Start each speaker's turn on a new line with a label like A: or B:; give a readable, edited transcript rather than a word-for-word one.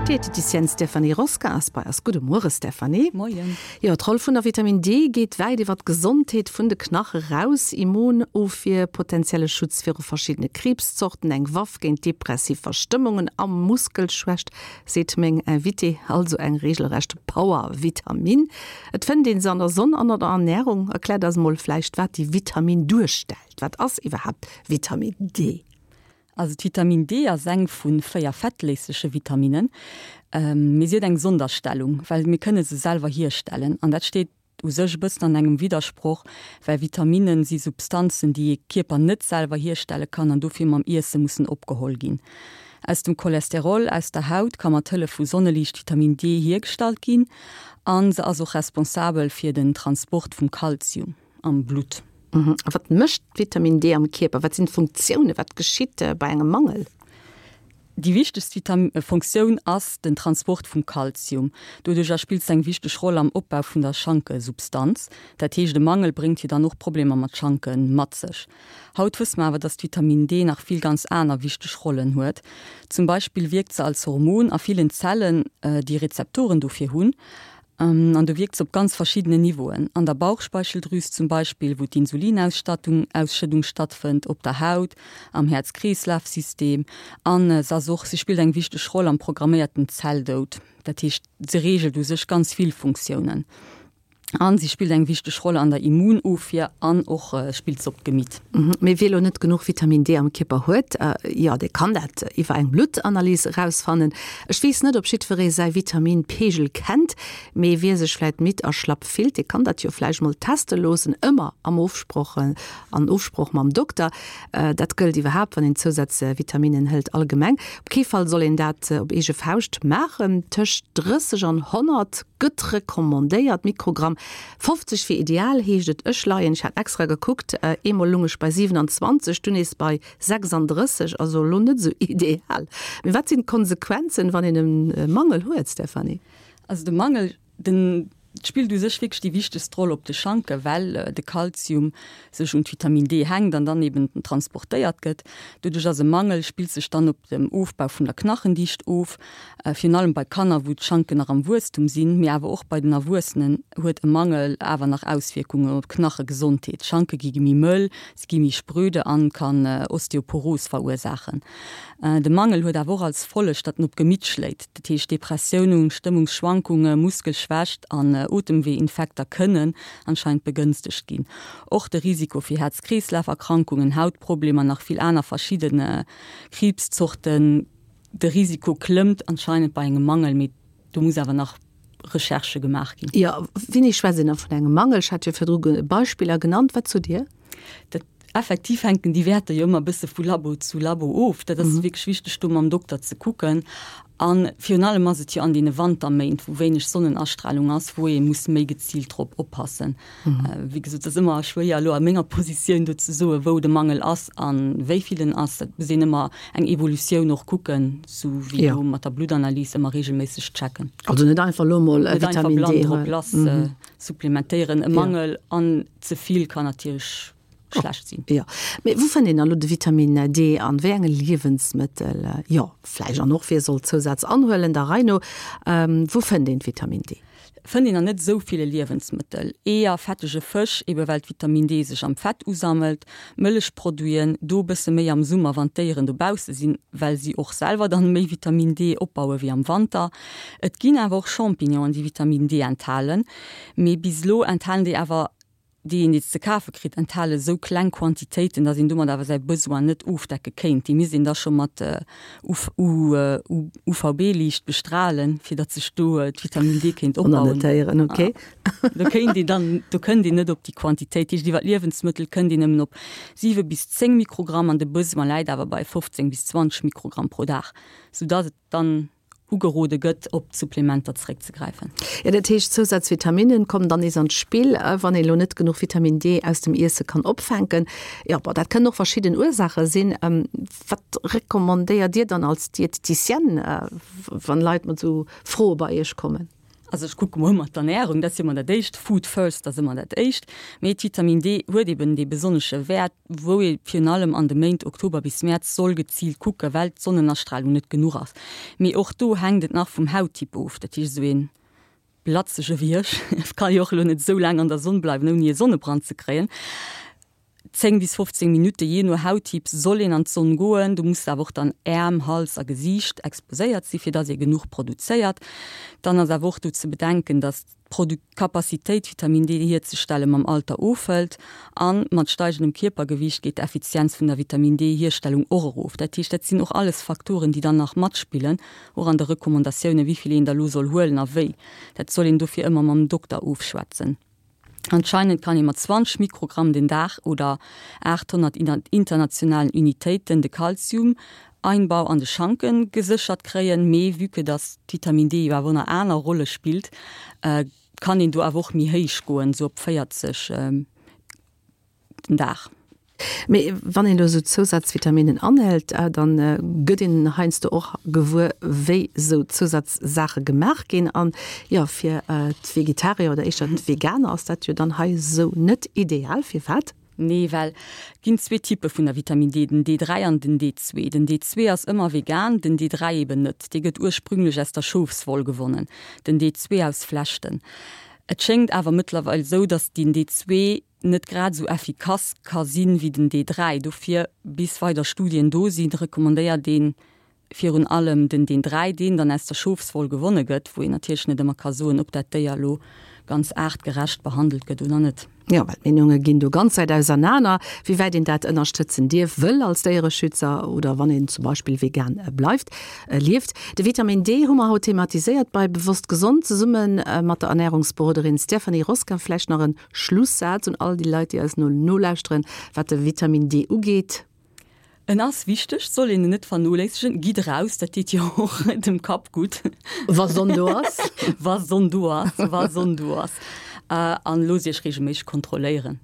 A: D'Dieteticienne Stéphanie Rosca ass bei eis. Gudde Muere Stéphanie.
B: Moien.
A: Jo, d'Roll vun der Vitamin D geet wäit iwwer d'Gesondheet vun de Knache raus. Immunofwier, potenzielle Schutz viru verschiddene Kriibszorten, eng Waff géint depressiv Verstëmmungen a Muskelschwächt, seet meng Invitée. Also eng reegelrecht Power-Vitamin. Et fënnt ee se an der Sonn an an der Ernärung. Erkläert eis mol vläicht, wat déi Vitamin duerstellt. Wat ass iwwerhaapt Vitamin D?
B: Also d'Vitamin D ass eng vu 4 fettléisleche Vitaminnen, mee si huet eng Sonderstellung, well mir kënne se selwer hierstellen. An dat steet u sech e bëssen an engem Widdersproch, well Vitaminnen si Substanzen, déi ee Kierper net selwer hierstelle kann an dofir mam Iesse mussen opgeholl ginn. Aus dem Cholesterol aus der Haut ka mat Hëllef vu Sonneliicht Vitamin D hiergestallt ginn a se ass och responsabel fir den Transport vum Kalzium. am Blutt.
A: A wat mécht d'Vitamin D am Kierper? Wat sinn d'Funktiounen? Wat geschitt bei engem Mangel?
B: Déi wichtegst Funktioun ass den Transport vum Kalzium. Doduercher spillt se eng wichteg Roll am Opbau vun der Schankesubstanz. Dat heescht, e Mangel bréngt jo dann och Problemer mat Schanke mat sech. Haut wësse mer awer, dass d'Vitamin D nach vill ganz aner wichteg Rollen huet. Zum Beispill wierkt se als Hormon a villen Zellen, déi Rezeptoren dofir hunn. An do wierkt se op ganz verschiddenen Niveauen, an der Bauchspeicheldrüs zum Beispill, wou d'Insulinausstattung, Ausschëddung stattfënnt, op der Haut, am Häerz-Kreeslaf-System an se ass och, se spillt eng wichteg Roll am programméierten Zelldoud. Dat heescht, se reegelt u sech ganz vill Funktiounen. An si spillt eng wichteg Roll an der Immunofwier an och spillt se op d'Gemitt.
A: Mee wie elo net genuch Vitamin D am Kierper huet, jo dee kann dat iwwer eng Bluttanalys erausfannen. Ech weess net ob jiddweree säi Vitamin-Peegel kennt, mee wie sech vläit midd a schlapp fillt, dee kann dat jo vläicht mol teste loossen, ëmmer am Ofsproch, an Ofsproch mam Dokter. Dat gëllt iwwerhaapt wann een Zousazvitaminen hëlt allgemeng. Op kee Fall soll een dat op eege Fauscht maachen. Tëscht 30 an 100 gëtt recommandéiert, Mikrogramm. 50 wier ideal, heescht et. Ech leien, ech hat extra gekuckt, eemol lung ech bei 27, dunn nees bei 36, also elo net esou ideal. Mee wat sinn d'Konsequenzen, wann een e Mangel huet, Stéphanie?
B: Also de Mangel, den spillt u sech wierklech déi wichtegst Roll op de Schanke, well de Kalzium sech un d'Vitamin D hänkt an dann eben transportéiert gëtt. Doduerch ass e Mangel, spillt sech dann op dem Ofbau vun der Knachendicht of, Virun allem bei Kanner, wou d'Schanken nach am Wuesstum sinn, mee awer och bei den Erwuessenen huet e Mangel awer nach Auswierkungen op d'Knachegesondheet. D'Schanke gi méi mëll, se gi méi spröde an kann Osteoporos verursaachen. De Mangel huet awer och als Folleg, datt en op d'Gemitt schléit. Dat heescht Depressiounen, Stëmmungsschwankunge, Muskelschwächt an Otemweeinfekter kënnen anscheinend begënstegt ginn. Och de Risiko fir Häerz-Kreeslaf-Erkrankungen, Hautproblemer, nach vill aner verschidde Kriibszorten, De Risiko klëmmt anscheinend bei engem Mangel, mee do muss awer nach Recherchë gemaach ginn.
A: Jo, wéini schwätzt een da vun engem Mangel? Ech hat jo virdru Beispiller genannt. Wat sot Dir?
B: Dat effektiv hänken déi Wäerter jo ëmmer e bësse vu Labo zu Labo of. Dat ass wierklech wichteg, do mam Dokter ze kucken. A virun allem ass et jo an deene Wanterméint, wou wéineg Sonnenastralung ass, wou ee muss méi geziilt drop oppassen. Wéi gesot, et ass ëmmer schwéier elo a menger Positioun do ze soen, wou de Mangel ass a wéi vill en ass. Dat muss een ëmmer eng Evolutioun och kucken, sou wéi do mat der Bluttanalys ëmmer reegelméisseg checken.
A: Also net einfach elo mol
B: Vitamin D. Net einfach blann drop lass supplementéieren. E Mangel an ze vill kann natierlech schlecht sinn.
A: Jo, mee wou fënnt een dann elo de Vitamin D an wéi enge Liewensmëttel? Jo, vläicht an och wie soll Zousaz anhuelen, der Rei no. Wou fënnt een d'Vitamin D?
B: Fënnt een an net esou ville Liewensmëttel. Eeër, fettege Fësch, ebe well d'Vitamin D sech am Fett usammelt, Mëllechproduiten, do e bësse méi am Summer wann d'Déieren dobausse sinn, well si och selwer dann méi Vitamin D opbaue wéi am Wanter. Et ginn awer och Champignonen déi Vitamin D enthalen, mee bis elo enthalen déi awer déi een ze kafe kritt, enthale esou kleng Quantitéiten, datt een domat awer säi Besoin net ofdecke kéint. Déi misst een da scho mat UVB-Liicht bestralen, fir datt sech do d'Vitamin D kéint opbauen.
A: Annotéieren, ok.
B: Do kéint een dann, do kënnt een net op déi Quantitéit. Dat heescht, iwwer d'Liewensmëttel kënnt een nëmmen op 7 bis 10 Mikrogramm an de Besoin läit awer bei 15 bis 20 Mikrogramm pro Dag, soudatt et dann ugerode gëtt, op Supplementer zeréckzegräifen.
A: Jo, dat heescht, Zousazvitaminen kommen dann nees an d'Spill, wann een elo net genuch Vitamin D aus dem Iesse kann opfänken. Jo, bon, dat kënnen och verschidden Ursaache sinn. Wat recommandéiert Dir dann als Dieteticienne, wann Leit mat esou Froe bei Iech kommen?
B: Also ech kucke mol ëmmer d'Ernärung, dat ass jo ëmmer dat Éischt, Food first ass ëmmer dat Éischt. Mee d'Vitamin D huet eben dee besonnesche Wäert, wou ee virun allem an de Méint Oktober bis Mäerz soll geziilt kucken, well d'Sonnenastralung net genuch ass. Mee och do hänkt et nach vum Hauttyp of. Dat heescht, esou ee blatzege wéi ech ka jo och elo net esou laang an der Sonn bleiwen, ouni e Sonnebrand ze kréien. 10 bis 15 Minutte, jee no Hauttyp, soll een an d'Sonn goen. Do muss awer och dann Äerm, Hals a Gesiicht exposéiert sinn, fir dass ee genuch produzéiert. Dann ass awer och do ze bedenken, dass d'Capacitéit Vitamin D hierzestelle mam Alter ofhëlt a mat steigendem Kierpergewiicht geet d'Effizienz vun der Vitamin D Hierstellung och erof. Dat heescht, dat sinn och alles Faktoren, déi dann nach matspillen, och an de Recommandatiounen, wéi vill een da lo soll huelen a wéi. Dat soll een dofir ëmmer mam Dokter ofschwätzen. Anscheinend kann ee mat 20 Mikrogramm den Dag oder 800 internationalen Unitéiten de Kalzium-Einbau an de Schanke geséchert kréien, mee vue que dass d'Vitamin D jo awer och nach aner Rolle spillt, kann een do awer och méi héich goen, sou op 40 den Dag.
A: Mee wann een elo esou Zousazvitaminen anhëlt, dann gëtt een heiansdo och gewuer, wéi esou Zousazsaache gemaach ginn. An jo, fir d'Vegetarier oder éischter d'Veganer ass dat jo dann hei esou net ideal. Firwat?
B: Nee, well et ginn zwee Typpe vun der Vitamin D, den D3 an den D2. Den D2 ass ëmmer vegan, den D3 eben net. Dee gëtt ursprünglech aus der Schofswoll gewonnen, den D2 aus Flechten. Et schéngt awer mëttlerweil esou, datt den D2 net grad esou effikass ka sinn wéi den D3. Dofir, bis weider Studien do sinn, recommandéiert een virun allem den D3, deen dann aus der Schofswoll gewonne gëtt, wou een natierlech net ëmmer ka soen, ob dat Déier elo ganz aartgerecht behandelt gëtt oder net.
A: Jo, well d'Meenunge ginn do ganz wäit ausernaner, wéi wäit een dat ënnerstëtzen dierf, wëll als Déiereschützer oder wann een zum Beispill vegan bleift, lieft. De Vitamin D hu mer haut thematiséiert bei Bewosst Gesond zesumme mat der Ernärungsberoderin Stéphanie Rosca. Vläicht nach en Schlussaz un all déi Leit, déi eis no nolauschteren, wat de Vitamin D ugeet.
B: En ass wichteg, soll een en net vernoléissegen. Gitt eraus, dat deet jo och dem Kapp gutt.
A: Wa Sonn do ass.
B: Wa Sonn do ass, wa Sonn do ass. An loosst iech reegelméisseg kontrolléieren.